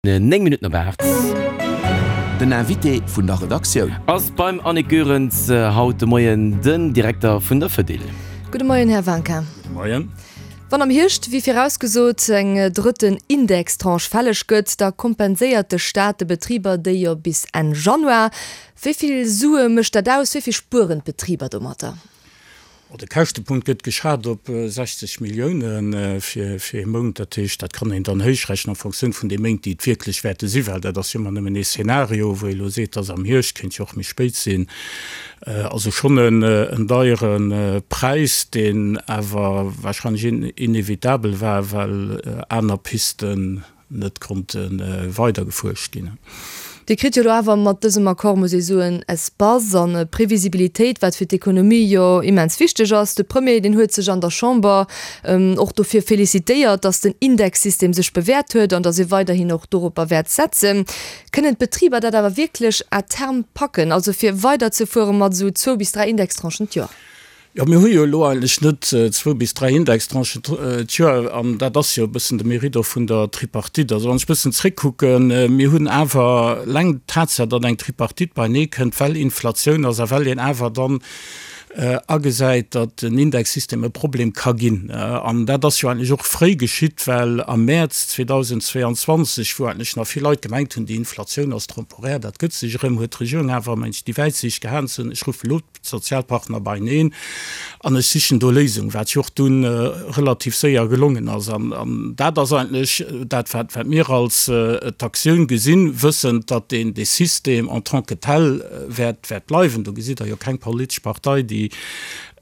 9 Minutten op 8. Den Invité vun der Redaktioun. Ass beim Annick Goerens haut de Moien den Direkter vun der Fedil. Gudde Moien, Här Wanka. Gudde Moien. Wann am Hierscht, wéi virausgesot, eng drëtten Indextranche fälleg gëtt, da kompenséiert de Staat de Betriber déi jo bis Enn Januar. Wéi vill Sue mécht dat aus? Wéi vill spueren d'Betriber domatter? De Käschtepunkt gëtt geschat op 60 Millioune fir ee Mount. Dat heescht, dat kann een dann héichrechnen en Fonctioun vun de Méint, déi et wierklech wäerte sinn, well dat ass jo ëmmer nëmmen ee Szenario, wou ee elo seet, dass am Hierscht, kéint jo och méi spéit sinn. Also schonn en deiere Präis, deen awer warscheinlech inevitabel war, well aner Pisten net konnte weidergefuerscht ginn. Dir kritt jo elo awer mat dësem Accord, muss ee soen, Espace an Previsibilitéit, wat fir d'Ekonomie jo immens wichteg ass. De Premier, deen huet sech an der Chamber och dofir felicitéiert, datt den Indexsystem sech bewäert huet an datt ee weiderhin och doropper wäert setzen. Kënnen d'Betriber dat awer wierklech à terme packen, also fir weiderzefuere mat esou zwou bis dräi Indextranchen d'Joer? Jo, mir hu jo elo eigentlech net zwou bis dräi Indextranchen d'Joer, an dat ass jo e bëssen de Mérite och vun der Tripartite. Also wann ech e bëssen zréckkucken, mir hunn awer eleng d'Tatsaach, datt eng Tripartite beinee kënnt, well Inflatioun ass a well een awer dann agesäit, datt den Indexsystem e Problem ka ginn. An dat ass jo eigentlech och fréi geschitt, well am Mäerz 2022, wou eigentlech nach vill Leit gemengt hunn, déi Inflatioun ass temporär, dat gëtt sech erëm, huet d'Regierung awer, mengen ech, déi Wäitsiicht gehat ze soen, ech ruffe elo d'Sozialpartner beieneen an ech sichen do Léisungen, wat jo och dunn relativ séier gelongen ass. An dat ass eigentlech dat, wat mir als d'Aktioun gesinn, wëssend, datt deen dee System en tant que tel wäert bleiwen. Do gesitt Der jo keng politesch Partei, déi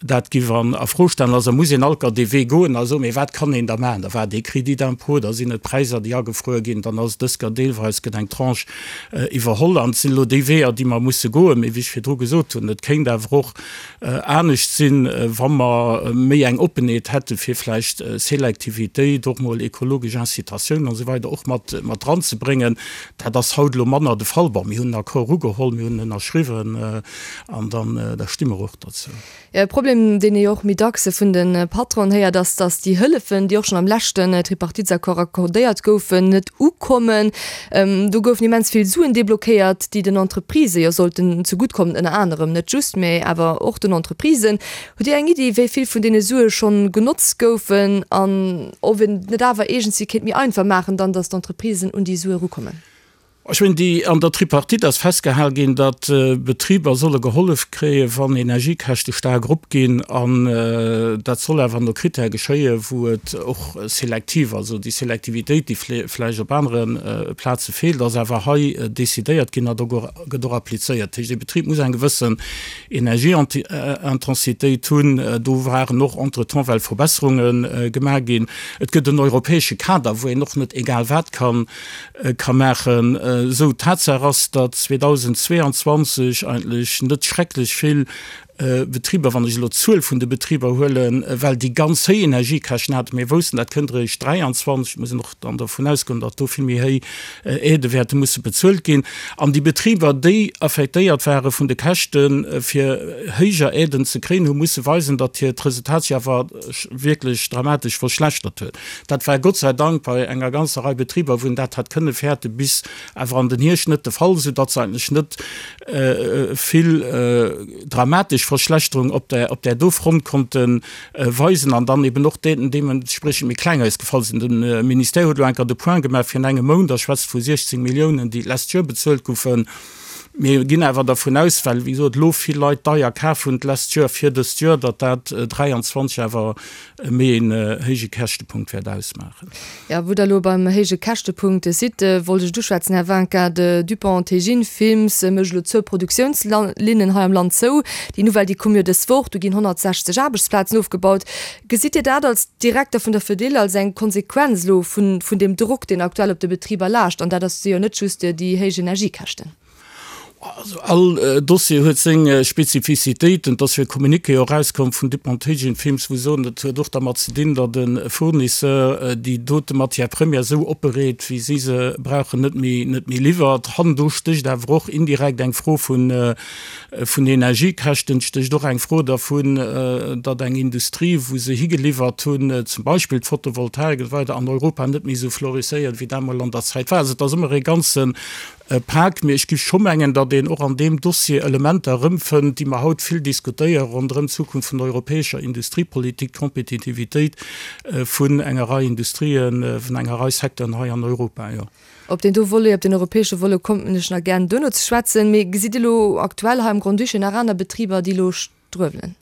dat giff a Fro stellen. Also muss een alt dee Wee goen a soen, mee wat kann een da maachen? Da war dee Crédit d'impôt, da sinn et Präisser, déi agefruer ginn, dann ass et dës Kéier deelweis gëtt eng Tranche iwwerholl. An et sinn elo déi Weeër, déi mer musse goen. Mee wéi ech virdru gesot hunn, et kéint awer och anescht sinn, wa mer méi eng Oppenheet hätte fir vläicht Selektivitéit, och mol ekologesch Incitatiounen an esou weider och mat dranzebréngen. Dat ass haut elo manner de Fall. Bon, mir hunn en Accord ugeholl, mir hunn en ënnerschriwwen an dann, da sti mer och dozou. E Problem, deen ee jo och méi dacks vun de Patronen héiert, ass, datt déi Hëllefen, déi och schonn am leschten Tripartitesaccord accordéiert goufen, net ukommen. Do goufen immens vill Suen deblockéiert, déi den Entreprisë jo sollten zegutt kommen, ënner anerem, net just, mä awer och den Entreprisen. Hutt Dir eng Iddi, wéi vill vun deene Sue schonn genotzt goufen an ob een et net awer iergendwéi kéint méi einfach maachen dann, datt d'Entreprisen un déi Sue erukommen? Ech mengen, déi, an der Tripartite ass festgehal ginn, datt Betriber solle gehollef kréien, wann Energiekäschte staark eropginn. An dat soll awer no Critèrë geschéien, wou et och selektiv, also déi Selektivitéit, déi vläicht op anere Plaze feelt, ass awer hei decidéiert ginn a do gëtt och applizéiert. Dat heescht, ee Betrib muss eng gewëssen Energieintensitéit hunn. Do waren och entretemps well Verbesserunge gemaach ginn. Et gëtt en europäesche Kader, wou een och net egal wat kann ka maachen. Esou, Tatsaach ass, datt 2022 eigentlech net schrecklech vill Betriber, wann ech elo d'Zuel vun de Betriber huelen, well déi ganz héich Energiekäschten haten. Mir woussten, dat kënnt eréischt 23, et muss een och dann dovun ausgoen, datt do vill méi héich Aidë wäerte musse bezuelt ginn. An déi Betriber, déi affektéiert ware vun de Käschten, fir héijer Aiden ze kréien, hu musse weisen, datt hiert Resultat sech awer wierklech dramatesch verschlechtert huet. Dat war Gott sei Dank bei enger ganzer Rei Betriber, wou een dat hat kënne fäerte bis awer an den Hierscht net de Fall, soudatt se eigentlech net vill dramatesch Verschlechterung op där, op där do Front konnte weisen an dann eben och deementspriechend méi kleng ausgefall sinn. De Ministère huet elo enker de Point gemaach virun engem Mount a schwätzt vu 16 Milliounen, déi d'lescht Joer bezuelt goufen. Mir ginn awer dervun aus, well, wéi gesot, elo vill Leit deier kaf hunn d'lescht Joer fir dëst Joer, datt dat 23 awer méi een héije Käschtepunkt wäert ausmaachen. Jo, wou Der elo beim héije Käschtepunkt sidd, wollt ech et uschwätzen, Här Winkin. De Dupont Tegin Films mécht elo zwou Produktiounslinnen hei am Land zou. Déi Nouvelle, déi koum jo dës Woch. Do ginn 160 Aarbechtsplazen ofgebaut. Gesitt Dir dat als Direkter vun der Fedil als eng Konsequenz elo vun deem Drock, deen aktuell op de Betriber laascht? An dat ass jo net just déi héich Energiekäschten. Also all Dossier huet seng Spezifizitéiten. Et ass jo e Communiqué och erauskomm vun Dupont-Hagen Films, wou se soen, dat huet och dermat ze dinn, datt e Fournisseur déi dote Matière première esou opbereet, wéi si se brauchen, net méi, net méi liwwert. Hannendru stécht awer och indirekt eng Fro vun, vun Energiekäschten, et stécht och eng Fro dervun, datt eng Industrie, wou se higeliwwert hunn, zum Beispill d'Photovoltaik esou weider, an Europa net méi esou florisséiert, wéi dat emol an der Zäit war. Also et ass ëmmer e ganze Pak, mee ech géif scho mengen, datt een och an deem Dossier Elementer erëmfënnt, déi mer haut vill diskutéieren ronderëm d'Zukunft vun der europäescher Industriepolitik, d'Kompetitivitéit vun enger Rei Industrien, vun enger Rei Secteuren hei an Europa, jo. Op deen do Volet, op deen europäesche Volet kommen ech nach gären duerno ze schwätzen. Mee gesitt Dir elo aktuell hei am Grand-Duché nach aner Betriber, déi elo struewelen?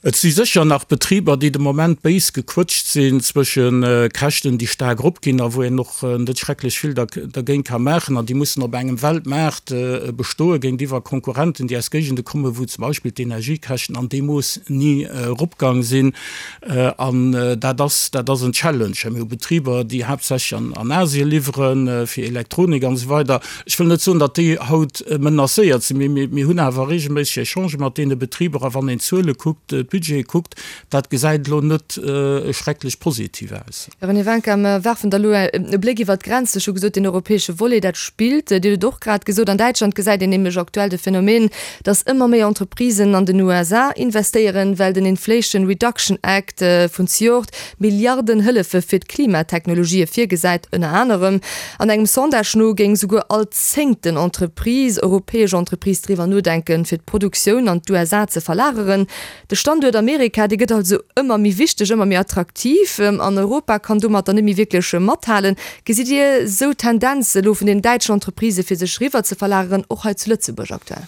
Et si sécher nach Betriber, déi de Moment béis gequëtscht sinn zwësche Käschten, déi staark eropginn a wou een och net schrecklech vill dergéint ka maachen an déi mussen op engem Weltmaart bestoe géintiwwer Konkurrenten, déi aus Géigende kommen, wou zum Beispill d'Energiekäschten an deem Mooss ni eropgang sinn. An dat ass, dat ass en Challenge. Mir hu Betriber, déi haaptsächlech an Asien liwwere fir Elektronik an esou weider. Ech wëll net soen, datt déi haut menacéiert sinn, mee mir hunn awer regelméisseg Echangë mat deene Betriber a wann een d'Zuele kuckt, d'Budgete kuckt, dat gesäit elo net schrecklech positiv aus. Här René Wincker, mer werfen da elo e Bléck iwwert d'Grenzen. Ech hu gesot, deen europäesche Volet, dat spillt. Dir hutt et och grad gesot, an Däitschland gesäit een nämlech aktuell de Phänomen, datt ëmmer méi Entreprisen an den USA investéieren, well den Inflation Reduction Act vun zejoert Milliarden Hëllefe fir d'Klimatechnologië virgesäit, ënner anerem. An engem Sondage no géing souguer all zéngten Entreprise, europäesch Entreprise, driwwer nodenken, fir d'Produktioun an d'USA ze verlageren. De Standuert Amerika, dee gëtt also ëmmer méi wichteg, ëmmer méi attraktiv an Europa kann domatter net méi wierklech mathalen. Gesitt Dir esou Tendenze elo vun den däitschen Entreprisë fir sech riwwer ze verlageren, och hei zu Lëtzebuerg aktuell?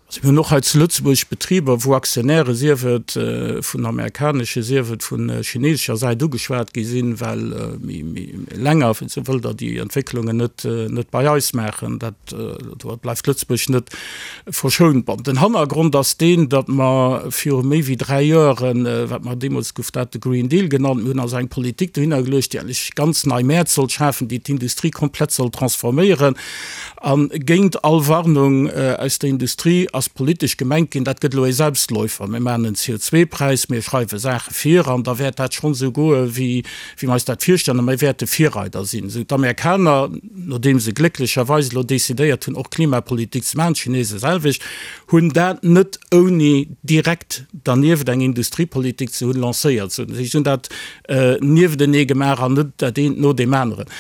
Also mir hunn och hei zu Lëtzebuerg Betriber, wou Aktionäre, sief et vun amerikanesche, sief et vu chinesescher Säit ugeschwat gi sinn, well méi länger, sou wëllt Der déi Entwécklungen net, net bei eis maachen. Dat, do bleift Lëtzebuerg net verschount. Bon, den Hannergrond ass deen, datt mer viru méi wéi 3 Joeren, wat mer deemools gouf dat de Green Deal genannt, mir hunn also eng Politik dohinner geluecht, déi eigentlech ganz nei Mäert sollt schafen, déi d'Industrie komplett sollt transforméieren. A géint all Warnung aus der Industrie ass politesch gemengt ginn, dat gëtt elo ee Selbstläufer, mir maachen en CO2-Präis, mir schreiwe Saache vir an da wäert dat schonn esou goe wéi mir eis dat virstellen a mir wäerte Virreider sinn. Esou d'Amerikaner, nodeem se glécklecherweis elo decidéiert hunn och Klimapolitik ze maachen, d'Chinese selwecht, hunn dat net ouni direkt dernieft eng Industriepolitik ze hunn lancéiert. Si hunn dat nieftenee gemaach an net dat eent no deem aneren.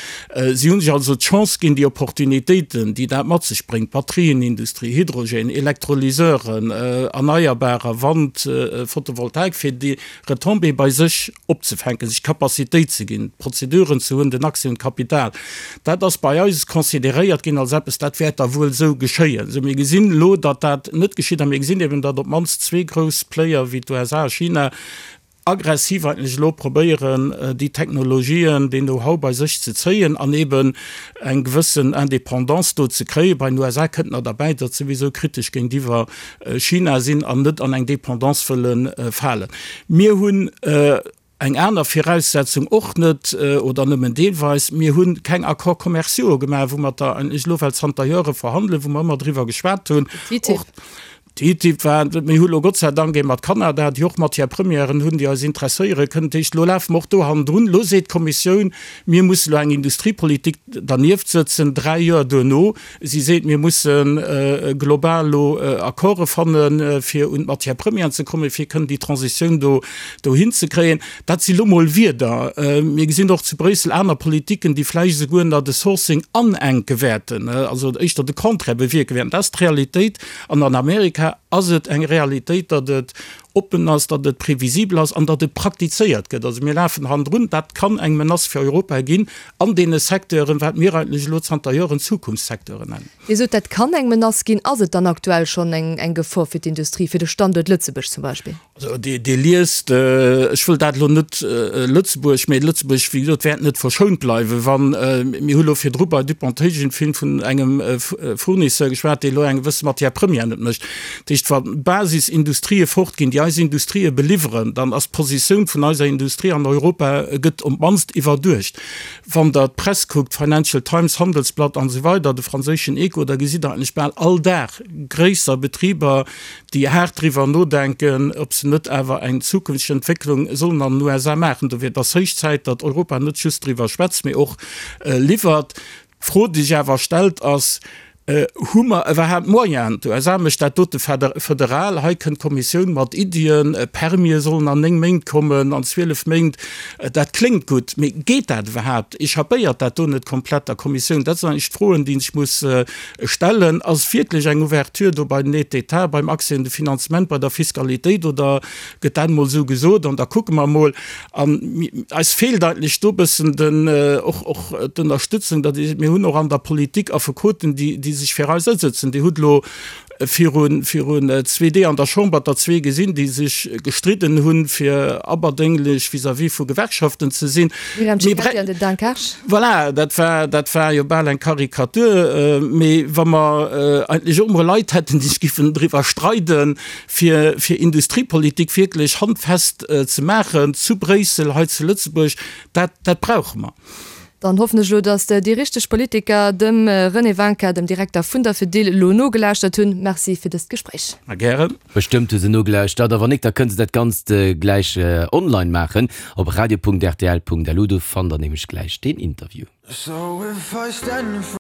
Si hu sech also d'Chance ginn, déi Opportunitéiten, déi dat mat sech bréngt, Batterienindustrie, Hydrogène, Elektrolyseuren, Erneierbarer, Wand, Photovoltaik, fir déi Retombéeë bei sech opzefänken, sech d'Capacitéit ze ginn, d'Prozeduren ze hunn, den Accès un d'Kapital. Dat ass bei eis consideréiert ginn als eppes, dat wäert da wuel esou geschéien. Sou, mir gesinn elo, datt dat net geschitt a mir gesinn eben, datt op d'mannst zwee grouss Player wéi d'USA a China aggressiv eigentlech elo probéieren, déi Technologien, deen Know-how bei sech ze zéien an eben eng gewëssen Indépendance do ze kréien. Bei den USA kënnt nach derbäi, datt se souwisou kritesch géintiwwer China sinn an net an eng Dépendance wëlle falen. Mir hunn eng aner Viraussetzung och net, oder nëmmen deelweis, Mir hu keng Accords commerciaux gemaach, wou mer der eigentlech elo well zanter Jore verhandelen, wou mer ëmmer driwwer geschwat hunn. TTIP. TTIP war, mir hu lo Gott sei Dank ee mat Kanada, déi och Matière-premièren hunn, déi eis interesséiere kënnen. Dat heescht, elo lafe mer och do hannendrun. Elo seet d'Kommissioun, mir musse lo eng Industriepolitik dernieft sëtzen, dräi Joer duerno. Si seet, mir musse global elo Accorde fannen, fir un d'Matière-premièren ze kommen, fir kënnen déi Transitioun do dohinzekréien. Dat si lo mol Wierder. Mir gesinn och zu Bréissel aner Politiken, déi vläicht esouguer nach de Sourcing anenke wäerten, also éischter de Contraire bewierke wäerten. Dat ass d'Realitéit. An an Amerika ass et eng Realitéit, datt et oppen ass, datt et previsibel ass an datt et praktizéiert gëtt. Also mir lafen hannendrun. Dat kann eng Menace fir Europa ginn an deene Secteuren, wat mir eigentlech elo zanter Joren Zukunftssecteuren nennen. Dir sot, dat kann eng Menace ginn. Ass et dann aktuell schonn eng Gefor fir d'Industrie, fir de Standuert Lëtzebuerg zum Beispill? Also Dir liest, ech wëll dat elo net Lëtzebuerg, mä Lëtzebuerg, wéi gesot, wäert net verschount bleiwen, wann, mir hu lo virdru bei Dupont-Hagen vun engem Fournisseur geschwat, dee lo eng gewësse Matière première net mécht. Dat heescht, wa Basisindustrië fortginn, déi. eis Industrië beliwweren, dann ass d'Positioun vun eiser Industrie an Europa gëtt op d'mannst iwwerduecht. Wann Der d'Press kuckt, Financial Times, Handelsblatt an esou weider, de franséischen Echo, da gesitt Der eigentlech bal all Dag gréisser Betriber, déi haart driwwer nodenken, ob se net awer eng zukünfteg Entwécklung sollen an den USA maachen. Dofir, et ass héich Zäit, datt Europa net just driwwer schwätzt, mee och liwwert. D'Fro, déi sech awer stellt, ass, Hu mer iwwerhaapt d'Moyenen? D'USA mécht dat dote federal. Hei kënnt d'Kommissioun mat Iddien, Permië sollen an 9 Méint kommen, an 12 Méint. Dat kléngt gutt, mee geet dat iwwerhaapt? Echappéiert dat do net komplett der Kommissioun? Dat sinn eigentlech d'Froen, déi een sech muss stellen. Ass wierklech eng Ouverture do bei den Aides d'État, beim Accès un de Finanzement, bei der Fiskalitéit oder gëtt dat emol esou gesot an da kucke mer emol? An eis feelt eigentlech do e bëssen den, och, och d'Ënnerstützung, datt ee, mir hunn och an der Politik Affekoten, déi, déi sech fir eis asëtzen. Dir hutt elo virun, virun zwee Dee an der Chamber der zwee gesinn, déi sech gestridden hunn, fir aberdénglech vis-à-vis vu Gewerkschaften ze sinn. D'Myriam Cecchetti an den Dan Kersch. Voilà, dat war, dat war jo bal eng Karikatur. Mee wa mer eigentlech och emol Leit hätten, déi sech giffen driwwer streiden, fir fir Industriepolitik wierklech handfest ze maachen zu Bréissel, hei zu Lëtzebuerg, dat dat brauche mer. Dann hoffen ech elo, datt déi richteg Politiker dem René Wincker, dem Direkter vun der Fedil, elo nogelauschtert hunn. Merci fir dëst Gespréich. A gären. Bestëmmt hu se nogelauschtert. A wann nik, da kënne se dat Ganzt gläich online maachen op radio.rtl.lu. Do fannt der nämlech gläich deen Interview.